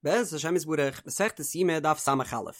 בעזרת השם יתברך, מסכת יומא דף ס"א,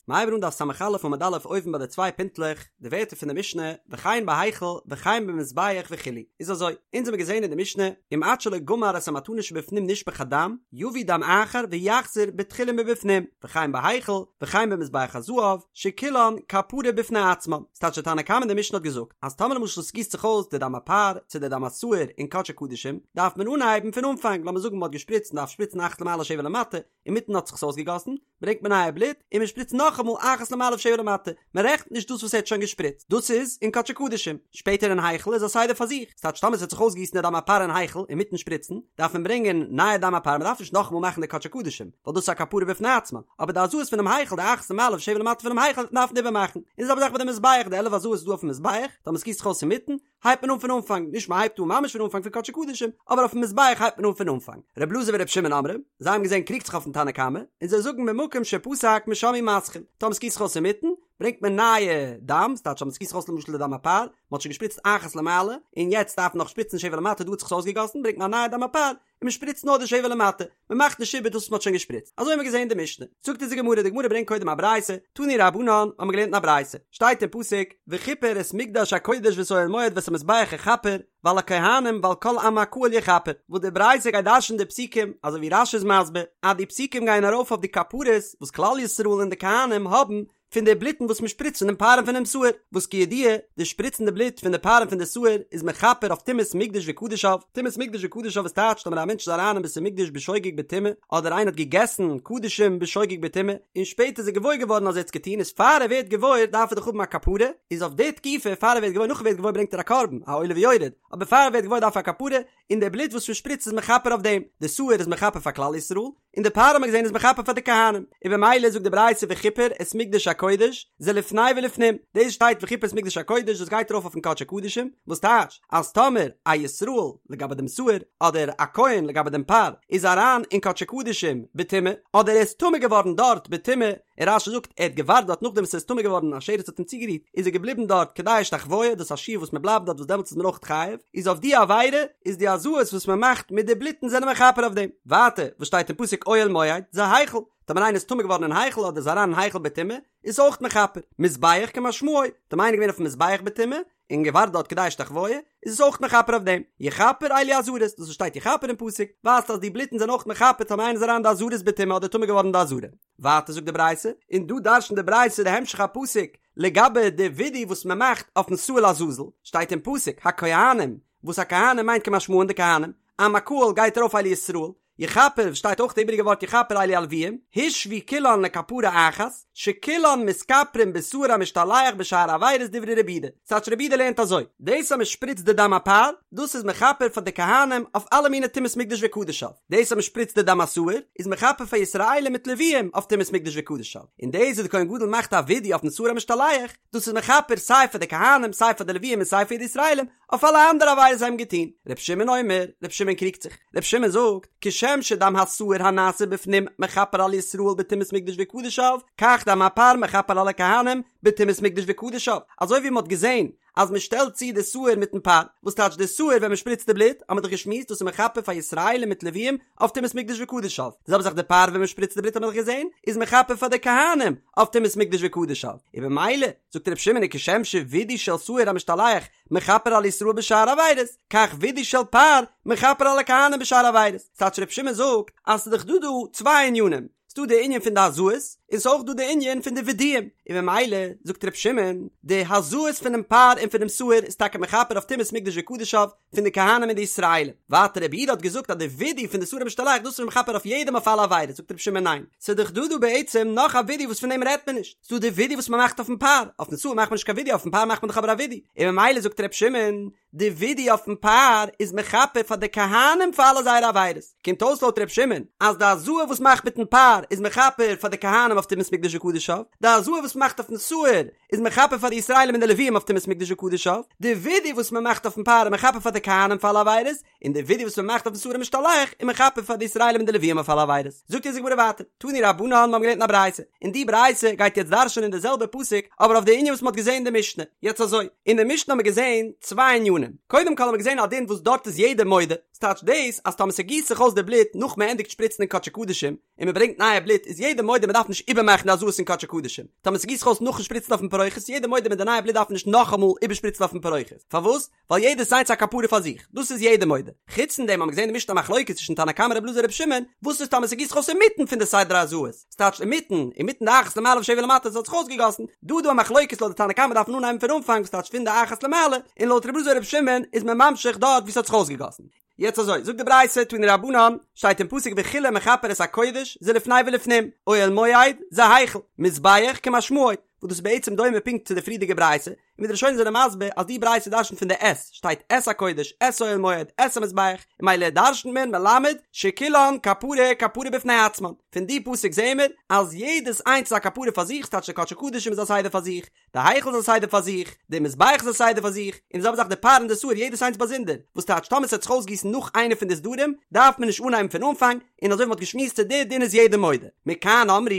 מ'הייבט אן דף ס"א עמוד א' אויבן ביי די צוויי פינטלעך, די ווערטער פון די משנה, וכן בהיכל, וכן במזבח וכו', איז אזוי, אונז האבן געזען אין די משנה, אם עד שלא גמר את המתנות שבפנים נשפך הדם, יביא דם אחר ויחזור בתחילה מבפנים, וכן בהיכל, וכן במזבח הזהב, שכולן כפרה בפני עצמן. ס'טייטש די תנא קמא אין די משנה האט געזאגט, אז טאמער למשל ס'גיסט זיך אויס די דם הפר, צו די דם השעיר אין קדשי קדשים, דארף מען אנהייבן פון אנפאנג, לאמיר זאגן מ'האט געשפריצט מ'דארף שפריצן אחת למעלה שבע למטה, אינמיטן האט זיך עס אויסגעגאסן, ברענגט מען נייע בלוט, און מ'שפריצט נאכאמאל אחת למעלה ושבע למטה, מ'רעכנט נישט דאס וואס ער האט שוין געשפריצט, דאס איז אין קדשי קדשים, שפעטער אין היכל איז א סדר פאר זיך, ס'טייטש טאמער ס'האט זיך אויסגעגיסן די דם הפר אין היכל אינמיטן שפריצן, דארף מען ברענגען נייע דם הפר, מ'דארף נישט נאכאמאל מאכן די קדשי קדשים, ווייל דאס איז א כפרה בפני עצמה, אבער די הזאות פונעם היכל, די אחת למעלה ושבע למטה פונעם היכל, דארף מען איבערמאכן, און די זעלבע זאך ביי די מזבח, די 11 הזאות איז דא אויפן מזבח, טאמער ס'גיסט זיך אויס אינמיטן, הייבט מען אן פון אנפאנג, נישט מ'הייבט אן ממש פון אנפאנג פון קדשי קדשים, אבער אויפן מזבח הייבט מען אן פון אנפאנג. ר' אלעזר ור' שמעון אומרים, זיי האבן געזען קריגט זיך אויפן תנא קמא, און זיי זאגן ממקום שפסק משם הוא מתחיל, טאמער ס'גיסט זיך אויס אינמיטן, ברענגט מען נייע דם, ס'טייטש אז ס'גיסט זיך אויס למשל די דם הפר, מ'האט שוין געשפריצט אחת למעלה, און יעצט דארף מען נאך שפריצן שבע למטה, דא האט זיך עס אויסגעגאסן, ברענגט מען א נייע דם הפר, און מ'שפריצט נאר די שבע למטה, מ'מאכט נישט איבער דאס וואס מ'האט שוין געשפריצט. אזוי האבן מיר געזען אין די משנה. זאגט אונז די גמרא, די גמרא ברענגט קודם א ברייתא, תנו רבנן, האבן מיר געלערנט אין א ברייתא, שטייט אין פסוק, וכפר את מקדש הקודש ואת אוהל מועד ואת המזבח יכפר, ועל הכהנים ועל כל עם הקהל יכפר, וואס די ברייתא גייט דרש'ן די פסוקים, אזוי ווי רש"י איז מסביר, אז די פסוקים גייען ארויף אויף די כפרות וואס כלל ישראל און די כהנים האבן פון די בלוטן וואס מען שפריצט פון דעם פר און פונעם שעיר, וואס כידוע, די שפריצן די בלוט פון די פר און פון די שעיר איז מכפר אויף טומאת מקדש וקדשיו, טומאת מקדש וקדשיו איז טייטש טאמער א מענטש איז אריין אין בית המקדש בשוגג בטומאה, אדער איינער האט געגעסן קדשים בשוגג בטומאה, און שפעטער איז ער געוואויר געווארן אז ער האט עס געטון איז פאר ער ווערט געוואויר דארף ער דאך האבן א כפרה, איז אויף די תקופה פאר ער ווערט געוואויר נאך ער ווערט געוואויר ברענגט ער א קרבן, א עולה ויורד, אבער פאר ער ווערט געוואויר דארף ער א כפרה, און די בלוט וואס מען שפריצט איז מכפר אויף דעם, די שעיר איז מכפר פאר כלל ישראל, און די פר האט מען געזען איז מכפר פאר די כהנים, און במילא זאגט די ברייתא וכיפר את מקדש הקודש זה לפני ולפנים, דאס שטייט וכיפר את מקדש הקודש דאס גייט ארויף אויפן קדשי קדשים, וואס טייטש אז טאמער א ישראל לגבי דעם שעיר אדער א כהן לגבי דעם פר איז אריין אין קדשי קדשים בטומאה אדער ער איז טמא געווארן דארט בטומאה, און רש"י זאגט ער האט געווארט דארט נאכדעם וואס ער איז טמא געווארן א שרץ האט אים צוגערירט איז ער געבליבן דארט כדי השתחוויה דאס איז א שיעור וואס מען בלייבט דארט וואס דעמאלטס איז מען אויך חייב איז אויף די עבירה איז די הזאות וואס מען מאכט מיט די בלוטן זענען מכפר אויף דעם ווייטער וואס שטייט אין פסוק אוהל מועד זה היכל טאמער איינער איז טמא געווארן אין היכל אדער איז אריין אין היכל בטומאה איז אויך מכפר מזבח כמשמעו טאמער איינער געווען אויפן מזבח בטומאה און געווארט דארט כדי השתחוויה, איז עס אויך מכפר אויף דעם. יכפר אלו עזרות, דאס וואס שטייט יכפר אין פסוק, ווייזט אז די בלוטן זענען אויך מכפר טאמער איינער איז אריין אין די עזרות בטומאה אדער טמא געווארן אין די עזרה. ווייטער זאגט די ברייתא, און דא דרש'נט די ברייתא די המשך הפסוק לגבי די ווידוי וואס מען מאכט אויפן שעיר לעזאזל, שטייט אין פסוק, הכהנים, וואס הכהנים מיינט כמשמען די כהנים, עם הקהל גייט ארויף אלו ישראל, יכפר, שטייט אויך די איבעריגע ווארט יכפר אלו הלוויים, הושוו כולן לכפרה אחת, שכולן מתכפרין בשעיר המשתלח בשאר עבירות דברי רבי יהודה. ס'טייטש רבי יהודה לערנט אזוי, דאס אז מ'שפריצט די דם הפר, דאס איז מכפר פאר די כהנים אויף אלע מיני טומאת מקדש וקדשיו, דאס אז מ'שפריצט די דם השעיר, איז מכפר פאר ישראלים מיט לוויים אויף טומאת מקדש וקדשיו, און דאס וואס די כהן גדול מאכט א ווידוי אויפן שעיר המשתלח, דאס איז מכפר סיי פאר די כהנים סיי פאר די לוויים און סיי פאר די ישראלים, אויף אלע אנדערע עבירות זיי האבן געטון. ר' שמעון אומר, ר' שמעון קריגט זיך. ר' שמעון זאגט, כשם שדם השעיר הנעשה בפנים מכפר על ישראל בטומאת מקדש וקדשיו, כך דם הפר מכפר על הכהנים בטומאת מקדש וקדשיו. אזוי ווי מען האט געזען אז מען שטעלט צו די שעיר מיטן פר, וואס טייטש די שעיר ווען מען שפריצט די בלוט, האט מען דאך געשמועסט דאס איז מכפר פאר ישראלים מיט לוויים אויף טומאת מקדש וקדשיו. די זעלבע זאך די פר ווען מען שפריצט די בלוט האט מען דאך געזען איז מכפר פאר די כהנים אויף טומאת מקדש וקדשיו. און במילא זאגט ר' שמעון כשם שווידוי של שעיר המשתלח מכפר על ישראל בשאר עבירות, כך וידוי של פר מכפר על הכהנים בשאר עבירות. ס'טייטש ר' שמעון זאגט אז ס'איז דאך דא דא צוויי ענינים, ס'דא די ענין פון די הזאות, און ס'איז אויך דא די ענין פון די וידויים, און ממילא זאגט ר' שמעון, די הזאות פונעם פר און פונעם שעיר איז טאקע מכפר אויף טומאת מקדש וקדשיו, פון די כהנים און די ישראלים. ווייטער רבי יהודה האט געזאגט אז די וידוי פון די שעיר המשתלח דאס איז מכפר אויף יעדעם אויף אלע עבירות, זאגט רבי שמעון ניין, ס'איז דאך דא דא בעצם נאך א וידוי וואס פון דעם רעדט מען נישט, ס'דא די וידוי וואס מ'מאכט אויפן פר, אויפן שעיר מאכט מען נישט קיין וידוי אויפן פר מאכט מען דאך אבער א וידוי, און ממילא זאגט רבי שמעון, די וידוי אויפן פר איז מכפר פאר די כהנים פאר אלע זייערע עבירות, קומט אויס לויט רבי שמעון אז די הזאה וואס מ'מאכט מיטן פר איז מכפר פאר די כהנים. אויף טומאת מקדש וקדשיו, די הזאה וואס מ'מאכט אויפן שעיר איז מכפר פאר די ישראלים און די לוויים אויף טומאת מקדש וקדשיו, די ווידוי וואס מ'מאכט אויפן פר איז מכפר פאר די כהנים פאר אלע עבירות, און די ווידוי וואס מ'מאכט אויפן שעיר המשתלח איז מכפר פאר די ישראלים און די לוויים אויף אלע עבירות. זאגט אונז די גמרא ווייטער, תנו רבנן, מיר האבן געלערנט אין א ברייתא, און די ברייתא גייט יעצט דרש'נען די זעלבע פסוק אבער אויף די ענין וואס מ'האט געזען אין די משנה. יעצט אזוי, אין די משנה האבן מיר געזען צוויי ענינים, קודם כל האבן מיר געזען א דין וואס דארט איז יעדער מודה, ס'טייטש דאס אז טאמער ס'גיסט זיך אויס די בלוט נאך מ'ענדיגט שפריצן אין קדשי קדשים, און מ'ברענגט נייע בלוט איז יעדער מודה מ'דארף נישט איבערמאכן די הזאות אין קדשי קדשים, טאמער ס'גיסט זיך אויס נאכן שפריצן אויפן פרוכת איז יעדער מודה מיט די נייע בלוט דארף מען נישט נאכאמאל איבערשפריצן אויפן פרוכת, פארוואס? ווייל יעדעס איינס א כפרה פאר זיך, דאס איז יעדער מודה. חוץ פון דעם האבן מיר געזען אין די משנה א מחלוקת צווישן תנא קמא רבי אלעזר רבי שמעון, וואס איז טאמער ס'גיסט זיך אויס אינמיטן פון די סדר הזאות, ס'טייטש אינמיטן, אינמיטן די אחת למעלה ושבע למטה ס'האט זיך אויסגעגאסן, דא איז דא א מחלוקת לויט די תנא קמא דארף מען אנהייבן פון אנפאנג וואס טייטש פון די אחת למעלה, און לויט רבי אלעזר רבי שמעון איז מען ממשיך דארט וואו ס'האט זיך אויסגעגאסן. יעצט אזוי, זאגט די ברייתא, תנו רבנן, שטייט אין פסוק וכלה מכפר את הקודש, זה לפני ולפנים, אוהל מועד, זה היכל, מזבח כמשמעו, וואס דאס איז בעצם דומה פונקט צו די פריערדיגע ברייתא, און ווי די ראשונים זענען מסביר אז די ברייתא דרשנ'ט פון די את, שטייט את הקודש, את אוהל מועד, את המזבח, און ממילא דרשנ'ט מען מלמד שכולן כפרה כפרה בפני עצמן, פון די פסוק זעהן מיר אז יעדעס איינס איז א כפרה פאר זיך, ס'טייטש די קדשי קדשים איז א סדר פאר זיך, די היכל איז א סדר פאר זיך, די מזבח איז א סדר פאר זיך, און די זעלבע זאך די פר און די שעיר יעדעס איינס באזונדער, וואס טייטש טאמער ס'וועט זיך אויסגיסן נאך איינע פון די סדרים דארף מען נישט אנהייבן פון אנפאנג, און אזוי ווי מ'האט געשמועסט צו די דין איז יעדער מודה. מכאן אמרו,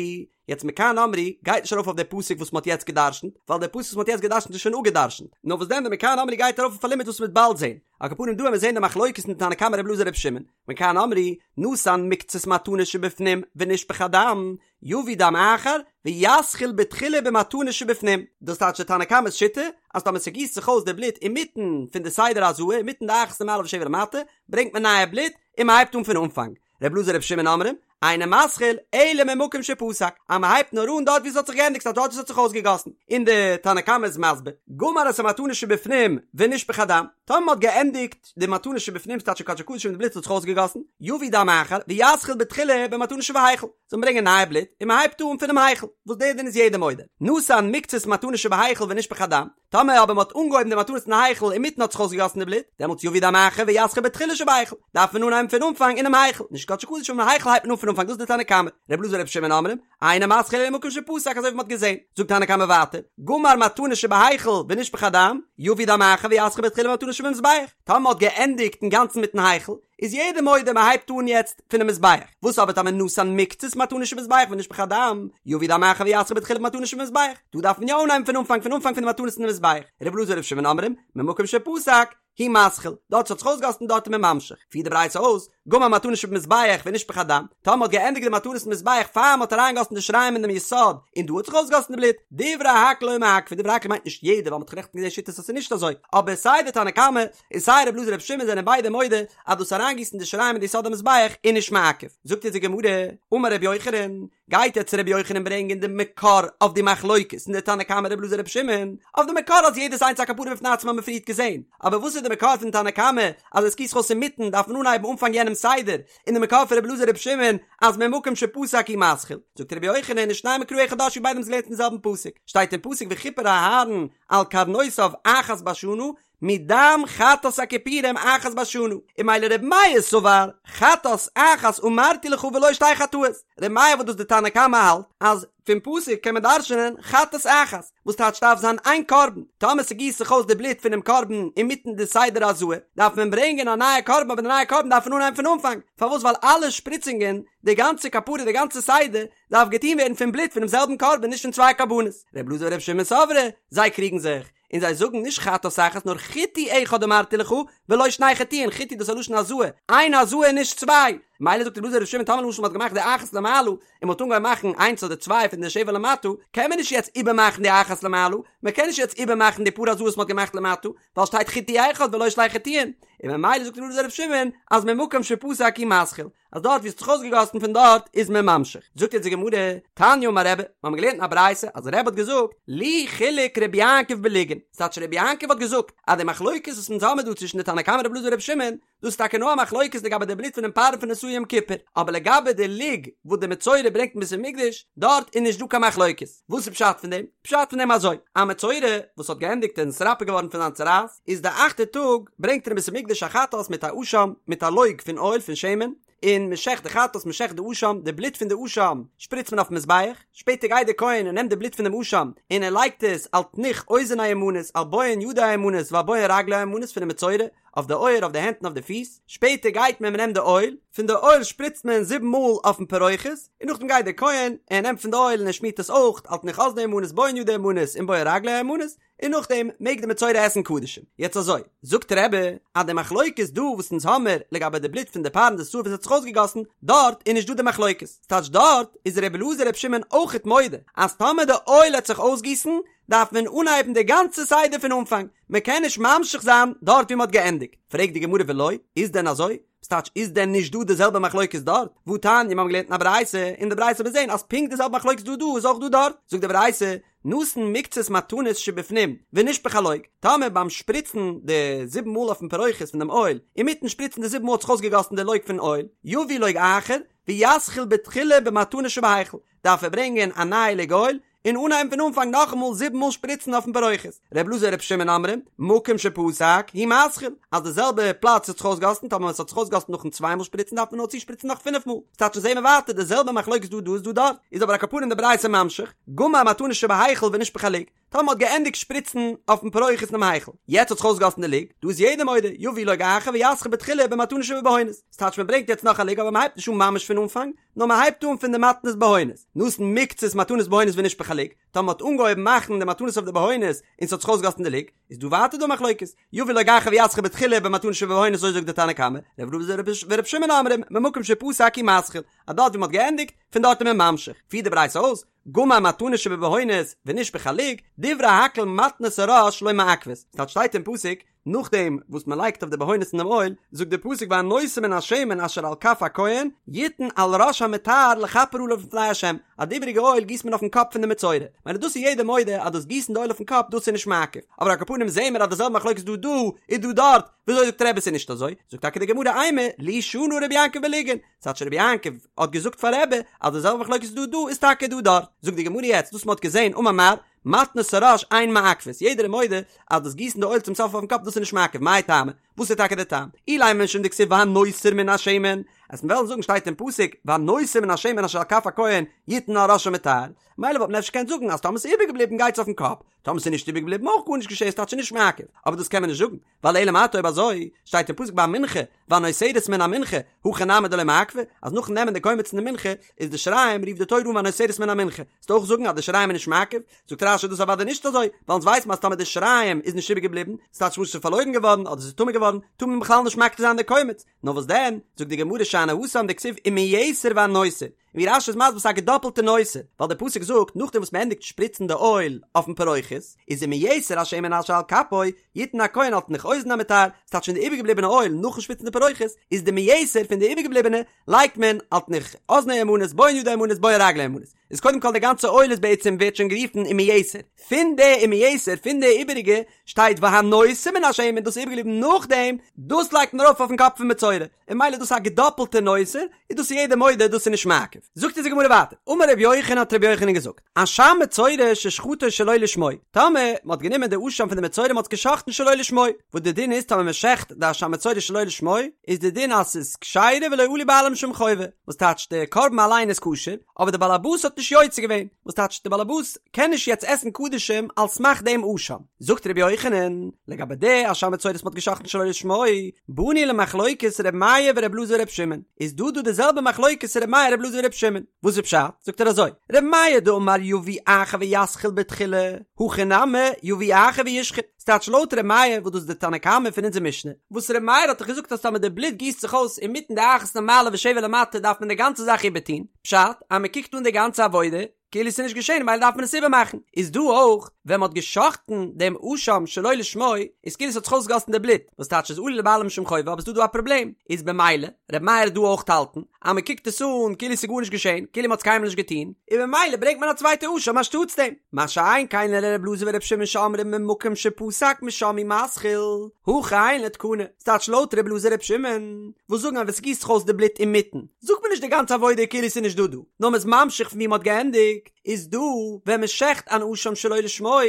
יעצט מכאן אמרו גייט נישט ארויף אויף די פסוק וואס מ'האט יעצט גע'דרש'נט, ווייל די פסוק וואס מ'האט יעצט גע'דרש'נט איז שוין אפגע'דרש'נט, נאר וואס דען די מכאן אמרו גייט ארויף אויף א לימוד וואס מ'וועט באלד זען, על כל פנים דא וועט מען זען די מחלוקת אין תנא קמא ר' אלעזר ר' שמעון, מכאן אמרו, נתן מקצת מתנה שבפנים ונשפך הדם, יביא דם אחר ויתחיל בתחילה במתנה שבפנים, דאס טייטש די תנא קמא'ס שיטה אז טאמער ס'גיסט זיך אויס די בלוט אינמיטן פון די סדר הזאה אינמיטן די אחת למעלה ושבע למטה ברענגט מען נייע בלוט און מ'הייבט אן פון אנפאנג, ר' אלעזר ר' שמעון אומרים, אינו מתחיל אלא ממקום שפסק, אז מ'הייבט נאר אן דארט ווי ס'האט זיך געענדיגט ס'טייטש דארט ווי ס'האט זיך אויסגעגאסן, און די תנא קמא איז מסביר, גמר את המתנה שבפנים ונשפך הדם, טאמער מ'האט געענדיגט די מתנה שבפנים ס'טייטש קדשי קדשים און די בלוט האט זיך אויסגעגאסן, יביא דם אחר ויתחיל בתחילה במתנה שבהיכל, זאל מען ברענגען נייע בלוט און מען הייבט אן פונעם היכל, וואס דער דין איז יעדער מודה, נתן מקצת מתנה שבהיכל ונשפך הדם, טאמער אבער מען האט אנגעהויבן די מתנות אין היכל אינמיטן האט זיך אויסגעגאסן די בלוט, דעמאלטס יביא דם אחר ויתחיל בתחילה שבהיכל, דארף מען אנהייבן פון אנפאנג אינעם היכל, נישט קדשי קדשים אינעם היכל הייבט מען אן פון אנפאנג דאס איז די תנא קמא, ר' אלעזר ר' שמעון אומרים, אינו מתחיל אלא ממקום שפסק אזוי ווי מען האט געזען, זאגט תנא קמא ווייטער, גמר מתנה שבהיכל ונשפך הדם, יביא דם אחר ויתחיל בתחילה במתנה שבמזבח, טאמער מען האט געענדיגט אינגאנצן מיטן היכל, איז יעדער מודה מען הייבט אן יעצט פונעם מזבח, וואס אבער טאמער נתן מקצת מתנה שבמזבח ונשפך הדם, יביא דם אחר ויתחיל בתחילה במתנה שבמזבח, דא דארף מען יא אנהייבן פון אנפאנג פון אנפאנג פון די מתנות אין די מזבח, ר' אלעזר ר' שמעון אומרים, ממקום שפסק, הוא מתחיל, דארט ס'האט זיך אויסגעגאסן דארט איז מען ממשיך, פירט די ברייתא אויס, גמר מתנה שבמזבח ונשפך הדם, טאמער מ'האט געענדיגט די מתנות אין מזבח פאר מ'האט אריינגעגאסן די שיריים אין דעם יסוד, און דא האט זיך אויסגעגאסן די בלוט, דברי הכל לא מעכבי, דברי הכל מיינט נישט יעדער ווייל מ'האט נעכטן געזען שיטות אז ס'איז נישט אזוי, אבער סיי די תנא קמא און סיי ר' אלעזר ר' שמעון זענען ביידע מודה אז דאס אריינגיסן די שיריים אין די יסוד המזבח איז נישט מעכב. זאגט אונז די גמרא, אמר רבי יוחנן, גייט יעצט רבי יוחנן ברענגען די מקור אויף די מחלוקת אין די תנא קמא ר' אלעזר ר' שמעון, אויף די מקור אז יעדעס איינס א כפרה בפני עצמה האבן מיר פריערט געזען, אבער וואס איז די מקור פון תנא קמא אז עס גיסט זיך אויס אינמיטן דארף מען אנהייבן אנפאנג יענעם סדר, און די מקור פון ר' אלעזר ר' שמעון אז ממקום שפסק הוא מתחיל, זאגט רבי יוחנן ושניהם מקרא אחד דרשו ביידע האבן עס געלערנט אין זעלבן פסוק, שטייט אין פסוק וכפר אהרן על קרנותיו אחת בשנה, מדם חטאת הכפורים אחת בשנה, און ממילא ר' מאיר סבר חטאת אחת אמרתי לך ולא שתי חטאות, ר' מאיר וואס דאס די תנא קמא האלט אז פון פסוק קען מען דרש'נען חטאת אחת, וואס טייטש דארף זיין איין קרבן, טאמער ס'גיסט זיך אויס די בלוט פונעם קרבן אינמיטן די סדר הזאה, דארף מען ברענגען א נייע קרבן אבער די נייע קרבן דארף מען אנהייבן פון אנפאנג, פארוואס ווייל אלע שפריצונגען, די גאנצע כפרה די גאנצע סדר, דארף געטון ווערן פון בלוט פונעם זעלבן קרבן נישט פון צוויי קרבנות, ר' אלעזר ור' שמעון סברי, זיי קריגן זיך, און זיי זאגן נישט חטאת אחת נאר חיטוי אחד אמרתי לך ולא שני חיטויין, חיטוי דאס איז א לשון הזאה, איין הזאה און נישט צוויי, מילא זאגט ר' אלעזר ר' שמעון טאמער למשל מ'האט געמאכט די אחת למעלה און מ'האט אנגעהויבן מאכן איינס אדער צוויי פון די שבע למטה, קען מען נישט יעצט איבערמאכן די אחת למעלה, מ'קען נישט יעצט איבערמאכן די פאר הזאות מ'האט געמאכט למטה, ווייל שטייט חיטוי אחד ולא שני חיטויין, און ממילא זאגט ר' אלעזר ר' שמעון אז ממקום שפסק הוא מתחיל, אז דארט ווי עס האט זיך אויסגעגאסן פון דארט איז מען ממשיך. זאגט יעצט די גמרא, תניא אמר רבי, מיר האבן געלערנט אין א ברייתא אז רבי האט געזאגט, לי חילק רבי יעקב בלוגין, ס'טייטש רבי יעקב האט געזאגט אז די מחלוקת וואס אונז האמיר דא צווישן די תנא קמא רבי אלעזר רבי שמעון, דאס איז טאקע נאר א מחלוקת לגבי די בלוט פונעם פר פון די שעיר יום כיפור, אבער לגבי די לוג וואס די מצורע ברענגט אין בית המקדש, דארט איז נישט דא קיין מחלוקת. וואס איז פשט פון דעם? פשט פון דעם אזוי, א מצורע וואס האט געענדיגט און נתרפא געווארן פון זיין צרעת, איז די אכטע טאג ברענגט ער אין בית המקדש א חטאת מיט א אשם, מיט א לוג פון אויל פון שמן. און מ'שעכט די חטאת, מ'שעכט די אשם, די בלוט פון די אשם שפריצט מען אויפן מזבח, שפעטער גייט דער כהן און נעמט די בלוט פון דעם אשם און ער לייגט עס על תנוך אוזן הימנית, על בוהן ידו הימנית ועל בוהן רגלו הימנית פונעם מצורע, אויף די אויער, אויף די הענט און אויף די פיס, שפעטער גייט מען מ'נעמט די אויל, פון די אויל שפריצט מען זיבן מאל אויפן פרוכת, און נאכדעם גייט דער כהן און ער נעמט פון די אויל און ער שמירט עס אויך על תנוך אזנו הימנית בוהן ידו הימנית און בוהן רגלו הימנית, און נאכדעם מעג די מצורע עסן קדשים. יעצט אזוי, זאגט רבי, אז די מחלוקת דא וואס אונז האמער לגבי די בלוט פון די פר און די שעיר וואס האט זיך אויסגעגאסן, דארט איז נישט דא די מחלוקת, ס'טייטש דארט איז רבי אלעזר רבי שמעון אויכעט מודה אז טאמער די אויל העט זיך אויסגיסן דארף מען אנהייבן די גאנצע סדר פון אנפאנג, מען קען נישט ממשיך זיין דארט ווי מען האט געענדיגט. פרעגט די גמרא ולא, איז דען אזוי? ס'טייטש איז דען נישט דא די זעלבע מחלוקת דארט? והתניא מיר האבן געלערנט אין א ברייתא, אין די ברייתא האט מען געזען אז פונקט די זעלבע מחלוקת דא דא איז אויך דא דארט, זאגט די ברייתא, נתן מקצת מתנות שבפנים ונשפך הלוג, טאמער ביים שפריצן די זיבן מאל אויפן פרוכת פון דעם אויל, אינמיטן שפריצן די זיבן מאל האט זיך אויסגעגאסן די לוג פון אויל, יביא לוג אחר, ויתחיל בתחילה במתנות שבהיכל, דארף ער ברענגען א נייע לוג אויל, און אנהייבן פון אנפאנג נאכאמאל זיבן מאל שפריצן אויפן פרוכת. ר' אלעזר ור' שמעון אומרים, מקום שפסק, הוא מתחיל, אז די זעלבע פלאץ האט זיך אויסגעגאסן, טאמער עס האט זיך אויסגעגאסן נאכן צוויי מאל שפריצן דארף מען נאר צושפריצן נאך פינף מאל. ס'טייטש זעהן מיר ווייטער די זעלבע מחלוקת דא דא איז דא דארט, איז אבער על כל פנים די ברייתא ממשיך, גמר מתנות שבהיכל ונשפך הלוג, טאמער מ'האט געענדיגט שפריצן אויפן פרוכת אינעם היכל, יעצט האט זיך אויסגעגאסן די לוג, דא איז יעדער מודה, יביא לוג אחר ויתחיל בתחילה במתנות שבבהונות, ס'טייטש מ'ברענגט יעצט נאך א לוג אבער מ'הייבט נישט אן ממש פון אנפאנג, נאר מ'הייבט אן פון די מתנות בהונות, נתן מקצת מתנות בהונות ונשפך הלוג, טאמער מ'האט אנגעהויבן מאכן די מתנות אויף די בהונות און ס'האט זיך אויסגעגאסן די לוג, איז דא ווייטער דא מחלוקת, יביא לוג אחר ויתחיל בתחילה במתנות שבבהונות אזוי זאגט די תנא קמא, ר' אלעזר ור' שמעון אומרים, ממקום שפסק הוא מתחיל, אז דארט ווי מ'האט געענדיגט, פון דארט איז מען ממשיך, פירט די ברייתא אויס, גמר מתנות שבבהונות ונשפך הלוג, דברי הכל מתנות הראש לא מעכבות, ס'טייטש שטייט אין פסוק, נאכדעם וואס מען לייגט אויף די בהונות אין דעם אויל, זאגט דער פסוק והנותר מן השמן אשר על כף הכהן, יתן על ראש המטהר לכפר עליו לפני ה', אז די איבעריגע אויל גיסט מען אויפן קאפ פון די מצורע, מילא דאס איז יעדער מודה אז דאס גיסן די אויל אויפן קאפ דאס איז נישט מעכב, אבער על כל פנים זעהן מיר אז די זעלבע מחלוקת דא דא איז דא דארט, וויאזוי זאגט רבי ס'איז נישט אזוי? זאגט טאקע די גמרא אימא לי שנה רבי יעקב בלוגין, ס'טייטש רבי יעקב האט געזאגט פאר רבי אז די זעלבע מחלוקת דא דא איז טאקע דא דארט, זאגט די גמרא יעצט דאס מ'האט געזעהן אמר מר, מתנות הראש אין מעכבות, יעדער איז מודה אז דאס גיסן די אויל צום סוף אויפן קאפ דאס איז נישט מעכב, מאי טעמא? וואס איז טאקע די טעם? אילימא משום דכתיב והנותר מן השמן, אז מיר וועלן זאגן שטייט אין פסוק והנותר מן השמן אשר על כף הכהן יתן על ראש המטהר, מילא וואלט מען אפשר געקענט זאגן אז טאמער ס'איז איבערגעבליבן גייטס אויפן קאפ, טאמער ס'איז נישט איבערגעבליבן אויך גארנישט געשען ס'טייטש נישט מעכב, אבער דאס קען מען נישט זאגן, ווייל אלא מעתה אויב אזוי שטייט אין פסוק ביי מנחה והנותרת מן המנחה הכי נמי דלא מעכבא אז נאכן נעמען די קומץ פון די מנחה איז די שיריים רופט די תורה אן והנותרת מן המנחה וועסטו אויך זאגן אז די שיריים איז נישט מעכב זאגט רש"י דאס אוודאי נישט אזוי ווייל אונז ווייסן אז טאמער די שיריים איז נישט איבערגעבליבן ס'טייטש למשל ס'איז פארלוירן געווארן אדער ס'איז טמא געווארן טאר מען בכלל נישט מקטיר זיין די קומץ נאר וואס דען זאגט די גמרא שאני התם דכתיב ומיתר והנותר ווי רש"י איז מסביר ס'איז א געדאפלטע נותר, ווייל דער פסוק זאגט נאכדעם וואס מ'ענדיגט שפריצן די אויל אויפן פרוכת, איז ומיתר השמן אשר על כפו, יתן הכהן על תנוך אוזן המטהר, ס'טייטש פון די איבערגעבליבענע אויל נאכן שפריצן די פרוכת, איז די מיתר פון די איבערגעבליבענע לייגט מען על תנוך אזנו הימנית בוהן ידו הימנית בוהן רגלו הימנית, איז קודם כל די גאנצע אויל איז בעצם ווערט שוין גערופן ומיתר, פון די ומיתר פון די איבעריגע שטייט והנותר מן השמן דאס איז איבערגעבליבן נאכדעם, דאס לייגט מען ארויף אויפן קאפ פון מצורע. און מילא דאס איז א געדאפלטע נותר, איז דאס יעדער מודה דאס איז נישט מעכב. זאגט אונז די גמרא ווייטער, אמר רבי יוחנן האט רבי יוחנן געזאגט, אשם מצורע ששחטו שלא לשמו, טאמער מען האט גענומען די אשם פון די מצורע מען האט עס געשחט'ן שלא לשמו, וואס די דין איז טאמער מען שעכט די אשם מצורע שלא לשמו, איז די דין אז ס'איז כשרה ולא עלו בעלים משום חובה, וואס טייטש די קרבן אליין איז כשר, אבער די בעל הבית האט נישט יוצא געווען, וואס טייטש די בעל הבית קען נישט יעצט עסן קדשים על סמך דעם אשם. זאגט רבי יוחנן, לגבי די אשם מצורע וואס מ'האט געשחט'ן שלא לשמו, באנו למחלוקת ר' מאיר ור' אלעזר ור' שמעון, איז דא דא די זעלבע מחלוקת ר' מאיר ר' אלעזר ור' שמעון, וואס איז פשט? זאגט ער אזוי, ר' מאיר דאמר יביא אחר ויתחיל בתחילה, הכא נמי יביא אחר וישחוט, ס'טייטש לויט ר' מאיר וואס דאס איז די תנא קמא פון אונזער משנה, וואס ר' מאיר האט דאך געזאגט אז טאמער די בלוט גיסט זיך אויס אינמיטן די אחת למעלה ושבע למטה דארף מען די גאנצע זאך איבערטון, פשט אז מ'קוקט אן די גאנצע עבודה, כאילו ס'איז נישט געשען ממילא דארף מען עס איבערמאכן, איז דא אויך ווען מ'האט גע'שחט'ן דעם אשם שלא לשמו איז כאילו ס'האט זיך אויסגעגאסן די בלוט, וואס טייטש איז עלו לבעלים משום חובה אבער ס'דא דא א פראבלעם, איז במילא ר' מאיר וועט דא אויך האלטן אז מ'קוקט עס אן כאילו ס'איז גארנישט געשען, כאילו מ'האט עס קיינמאל נישט געטון, און במילא ברענגט מען א צווייטע אשם אנשטאטס דעם. מה שאין כן לר' אלעזר ור' שמעון שאומרים ממקום שפסק משם הוא מתחיל, הכא אין לו תקנה, ס'טייטש לויט ר' אלעזר ר' שמעון וואס זאגן אז ווען ס'גיסט זיך אויס די בלוט אינמיטן זאגט מען נישט די גאנצע עבודה כאילו ס'איז נישט דא דא, נאר מ'איז ממשיך פון ווי מ'האט געענדיגט. געענדיגט, איז דא ווען מען שעכט אן אשם שלא לשמו,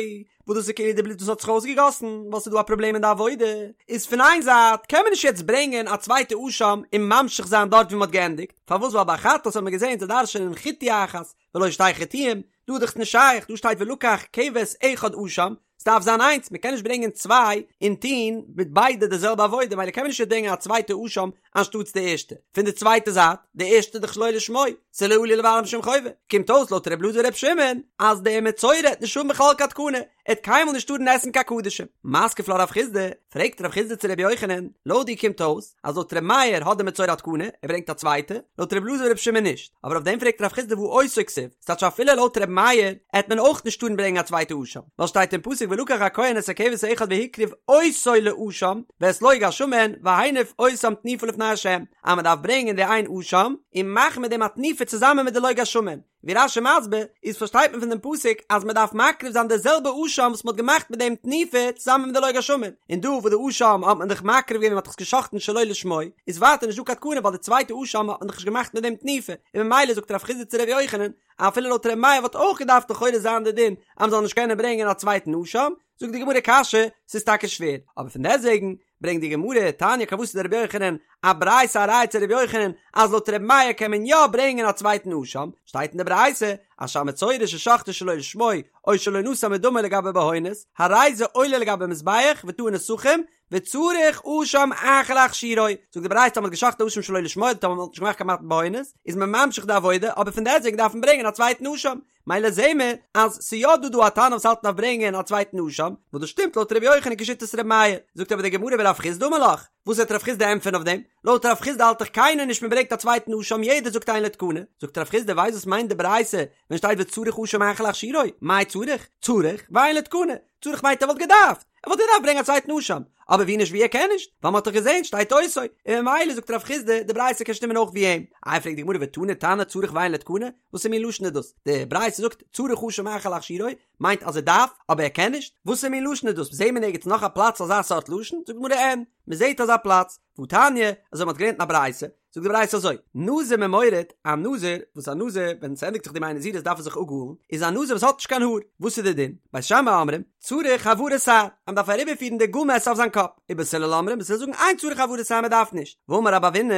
וואס דאס איז כאילו די בלוט וואס האט זיך אויסגעגאסן, ווייל ס'איז דא א פראבלעם אין די עבודה, איז פון איין זייט קען מען נישט יעצט ברענגען א צווייטע אשם און ממשיך זיין דארט ווי מען האט געענדיגט, פארוואס ווייל ביי חטאת האט מען געזען זיי דרש'ענען חיטוי אחת ולא שתי חיטויים, דא איז דאך נישט שייך, דא שטייט ולקח כבש אחד אשם, ס'דארף זיין איינס, מ'קען נישט ברענגען צוויי און טון מיט ביידע די זעלבע עבודה, מילא קען מען נישט ברענגען א צווייטע אשם אנשטאטס די ערשטע. פון די צווייטע זייט, די ערשטע איז דאך שלא לשמו, ס'איז לא עלו למעלה משום חובה. קומט אויס לויט ר' אלעזר ור' שמעון, אז דער מצורע העט נישט האבן בכלל קיין תקנה, ער העט קיינמאל נישט טארן עסן קיין קדשים. מתקיף לה רב חסדא, פרעגט רב חסדא צו ר' יוחנן, לויט דיר קומט אויס, אז לויט ר' מאיר האט דער מצורע א תקנה, ער ברענגט א צווייטע, לויט ר' אלעזר ור' שמעון נישט. אבער אויף דעם פרעגט רב חסדא והא אותו כתיב, ס'טייטש אפילו לויט ר' מאיר העט מען אויך נישט טארן ברענגען א צווייטע אשם, ווייל שטייט אין פסוק ולקח הכהן את הכבש האחד והקריב אותו לאשם ואת לוג השמן והניף אותם תנופה לפני ה', אז מען דארף ברענגען די איין אשם און מאכן מיט דעם א תנופה צוזאמען מיט די לוג השמן, ווי רש"י מסביר איז פארשטייט מען פון דעם פסוק אז מען דארף מקריב זיין די זעלבע אשם וואס מען האט געמאכט מיט דעם תנופה צוזאמען מיט די לוג השמן, און דא וואס די אשם האט מען דאך מקריב געווען מען האט דאך עס געשחט'ן שלא לשמו, איז ווייטער נישט דא קיין תקנה ווייל די צווייטע אשם האט מען דאך נישט געמאכט מיט דעם תנופה, און ממילא זאגט רב חסדא צו ר' יוחנן, אפילו לויט ר' מאיר וואלט אויך געדארפט לכאורה זיין די דין אז מען זאל נישט קענען ברענגען א צווייטן אשם, זאגט די גמרא קשיא, ס'איז טאקע שווער, אבער פון דעסטוועגן ברענגט די גמרא, תניא כוותיה דרבי יוחנן, א ברייתא א ראיה צו רבי יוחנן אז לויט ר' מאיר קען מען יא ברענגען א צווייטן אשם, שטייט אין די ברייתא, אשם מצורע ששחטו שלא לשמו, או שלא נתן מדמו לגבי בהונות, הרי זה עולה לגבי מזבח וטעון נסכים, וצריך אשם אחר להכשירו, זאגט די ברייתא אז מען האט געשחט'ן אשם שלא לשמו, אדער טאמער מען האט נישט געמאכט קיין מתן בהונות, איז מען ממשיך די עבודה, אבער פון דעסטוועגן דארף מען ברענגען א צווייטן אשם, מילא זעהן מיר אז ס'איז יא דא דא א תנא וואס האלט מ'דארף ברענגען א צווייטן אשם, וואס דאס שטימט לויט ר' יוחנן כשיטת ר' מאיר, זאגט אבער די גמרא ורב חסדא אמר לך, וואס וועט רב חסדא ענטפערן אויף דעם? לויט רב חסדא האלט דאך קיינער נישט מען ברענגט א צווייטן אשם יעדער זאגט אין לו תקנה, זאגט רב חסדא ווייסט וואס מיינט די ברייתא ווען שטייט וצריך אשם אחר להכשירו, מאי צריך? צריך ואין לו תקנה, צריך מיינט ער וואלט געדארפט, ער וואלט געדארפט ברענגען א צווייטן אשם, אבער ווי נישט ווי ער קען נישט, ווייל מ'האט דאך געזען שטייט אותו, און ממילא זאגט רב חסדא די ברייתא קען שטימען אויך ווי אים. איי פרעגט די גמרא ותני תנא צריך ואין לו תקנה, וואסער מין לשון איז דאס? די ברייתא זאגט צריך אשם אחר להכשירו, מיינט אז ער דארף, אבער ער קען נישט? וואסער מין לשון איז דאס? זעהן מיר נערגעץ נאך א פלאץ אזא סארט לשון? זאגט די גמרא אין, מ'זעהט אזא פלאץ, והתניא, אזוי מ'האט געלערנט אין א ברייתא, זאגט די ברייתא אזוי, נזיר ממורד, א נזיר, וואס א נזיר, ווען ס'ענדיגט זיך די ימי נזירות דארף ער זיך אפגאלן, איז א נזיר וואס האט נישט קיין האר, וואס איז די דין? בית שמאי אומרים, צריך העברת שער, אז מ'דארף אריבערפירן די גאל מעסער אויף זיין קאפ, ובית הלל אומרים, בית הלל זאגן אין צריך העברת שער מ'דארף נישט, ואמר רב אבינא,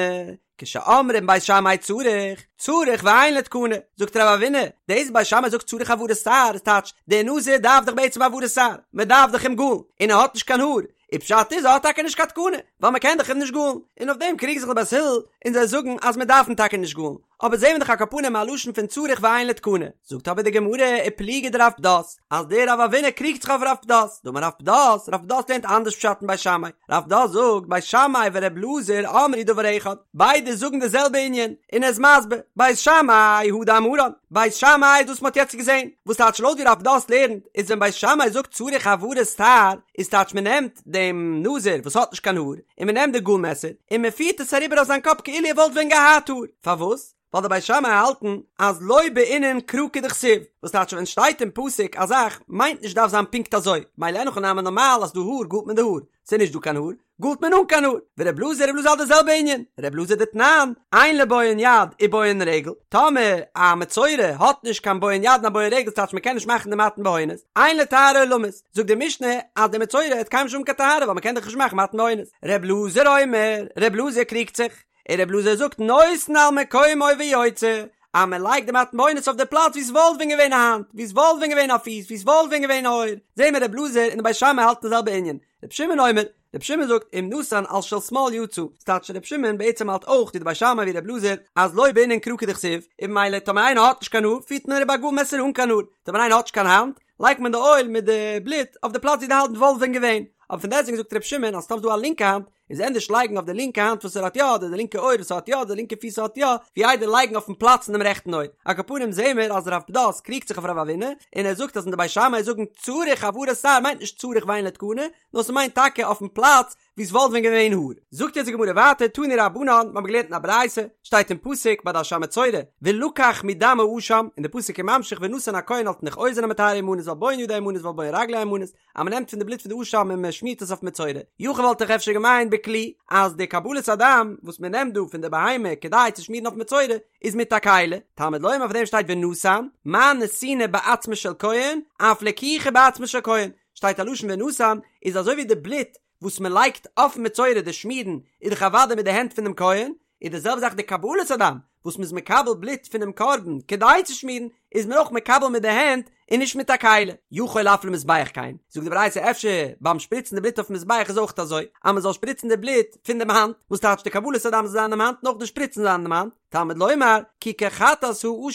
כשאומרים בית שמאי צריך, צריך ואין לו תקנה, זאגט רב אבינא, דאס בית שמאי זאגט צריך העברת שער איז טייטש, דער נזיר דארף דאך בעצם העברת שער, מ'דארף דאך אים גאלן, און ער האט נישט קיין האר, און פשט איז ער האט טאקע נישט קיין תקנה, ווייל מען קען דאך אים נישט גאלן, און אויף דעם קריגן זיך די בית הלל און זיי זאגן אז מען דארף אים טאקע נישט גאלן, אבער זעהן מיר דאך על כל פנים א לשון פון צריך ואין לו תקנה, זאגט אבער די גמרא ופליגא דרב פדת, אז דער רב אבינא קריגט זיך אויף רב פדת, דאמר רב פדת, רב פדת לערנט אנדערש פשט אין בית שמאי, רב פדת זאגט בית שמאי ור' אלעזר אמרו דבר אחד, ביידע זאגן די זעלבע ענין, און ער איז מסביר, בית שמאי הא דאמרן, בית שמאי איז דאס מען האט יעצט געזעהן, וואס טייטש לויט ווי רב פדת לערנט, איז ווען בית שמאי זאגט צריך העברת שער, איז טייטש מען נעמט דעם נזיר וואס האט נישט קיין האר, און מען נעמט די גאל מעסער און מען פירט עס אריבער אויף זיין קאפ כאילו ער וואלט ווען געהאט האר, פארוואס? ווייל די בית שמאי האלטן אז לא בעינן קרא כדכתיב, וואס טייטש ווען שטייט אין פסוק א זאך מיינט נישט דארף זיין פונקט אזוי, מילא אין הכי נמי נארמאל אז ס'דא האר גאלט מען די האר, ס'איז נישט דא קיין האר, גאלט מען אן קיין האר, ור' אלעזר ר' אלעזר האלט די זעלבע ענין, ר' אלעזר דתנן, אין לו בוהן יד ובוהן רגל, טאמער א מצורע האט נישט קיין בוהן יד און א בוהן רגל ס'טייטש מ'קען נישט מאכן די מתן בהונות, אין לו טהרה עולמית, זאגט די משנה אז די מצורע האט קיינמאל נישט האבן קיין טהרה ווייל מ'קען דאך נישט מאכן מתן בהונות, ר' אלעזר אומר, ר' אלעזר קריגט זיך, און ר' אלעזר זאגט נותן על מקומו ויוצא, אז מען לייגט די מתן בהונות אויף די פלאץ ווי ס'וואלט ווען געווען א האנט, ווי ס'וואלט ווען געווען א פיס, ווי ס'וואלט ווען געווען א אויער, זעהן מיר ר' אלעזר און די בית שמאי האלטן די זעלבע ענין, ר' שמעון אומר, ר' שמעון זאגט אם נתן על של שמאל יצא, ס'טייטש ר' שמעון בעצם האלט אויך ווי די בית שמאי ווי ר' אלעזר אז לא בעינן קרא כדכתיב, און ממילא טאמער איינער האט נישט קיין האר פירט מען אריבער א גאל מעסער אן קיין האר, טאמער איינער האט נישט קיין האנט לייגט מען די אויל מיט די בלוט אויף די פלאץ ווי די האנט וואלט ווען געווען, אבער פון דעסטוועגן זאגט ר' שמעון אז טאמער ס'דא א לינקע האנט איז ענדערש לייגן אויף די לינקע האנט וואס ער האט יא אדער די לינקע אויער וואס ער האט יא אדער די לינקע פיס האט יא, ווי איידער לייגן אויפן פלאץ פון דעם רעכטן אויער. על כל פנים זעהן מיר אז רב פדת קריגט זיך אויף רב אבינא, און ער זאגט אז ווען די בית שמאי זאגן צריך העברת שער מיינט נישט צריך ואין לו תקנה, נאר ס'מיינט טאקע אויפן פלאץ ווי ס'וואלט ווען געווען האר. זאגט יעצט די גמרא ווייטער, תנו רבנן, מ'האט געלערנט אין א ברייתא, שטייט אין פסוק ביי די אשם מצורע, ולקח מדם האשם, און די פסוק איז ממשיך ונתן הכהן על תנוך אוזן המטהר הימנית ועל בוהן ידו הימנית ועל בוהן רגלו הימנית, אז מ'נעמט פון די בלוט פון די אשם און מ'שמירט עס אויף מצורע. יכול וואלט איך אפשר געמיינט בכלי. בכלי, אז די קבלת הדם וואס מען נעמט דא פון די בהמה כדי צו שמירן אויף מצורע איז מיט א כלי, תלמוד לומר אויף דעם שטייט ונתן, מה נתינה בעצמו של כהן, אף לקיחה בעצמו של כהן, שטייט א לשון ונתן, איז אזוי ווי די בלוט וואס מען לייגט אויפן מצורע די שמירן איז דאך אוודאי מיט די הענט פונעם כהן, איז די זעלבע זאך די קבלת הדם וואס מ'איז מקבל בלוט פונעם קרבן כדי צו שמירן, איז מען אויך מקבל מיט די הענט און נישט מיט א כלי. יכול אף למזבח כן, זאגט די ברייתא אפשר ביים שפריצן די בלוט אויפן מזבח איז אויך אזוי, אז מ'זאל שפריצן די בלוט פון דעם האנט, וואס טייטש די קבלת הדם זאל זיין אינעם האנט און אויך די שפריצן זיין אינעם האנט, תלמוד לומר, כי כחטאת האשם הוא,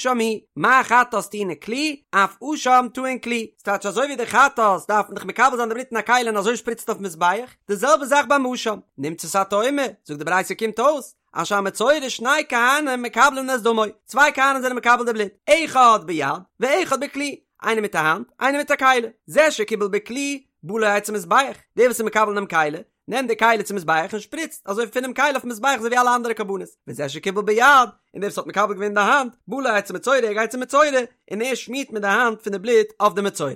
מה חטאת טעונה כלי, אף אשם טעון כלי, ס'טייטש אזוי ווי די חטאת דארף מען דאך מקבל זיין די בלוט אין א כלי און אזוי שפריצט אויפן מזבח, די זעלבע זאך ביים אשם, נמצאת אתה אומר, זאגט די ברייתא קומט אויס, אז שהמצורע שני כהנים מקבלין את דמו, צוויי כהנים זענען מקבל די בלוט, אחד ביד ואחד בכלי, איינער מיט א האנט, איינער מיט א כלי, זה שקיבל בכלי, בא לו אצל מזבח, דער וואס איז מקבל אינעם כלי, נעמט די כלי צום מזבח און שפריצט אזוי פונעם כלי אויפן מזבח אזוי ווי אלע אנדערע קרבנות, וזה שקיבל ביד, און דער וואס האט מקבל געווען אין די האנט, בא לו אצל מצורע ער גייט צום מצורע, און ער שמירט מיט די האנט פון די בלוט אויף די מצורע.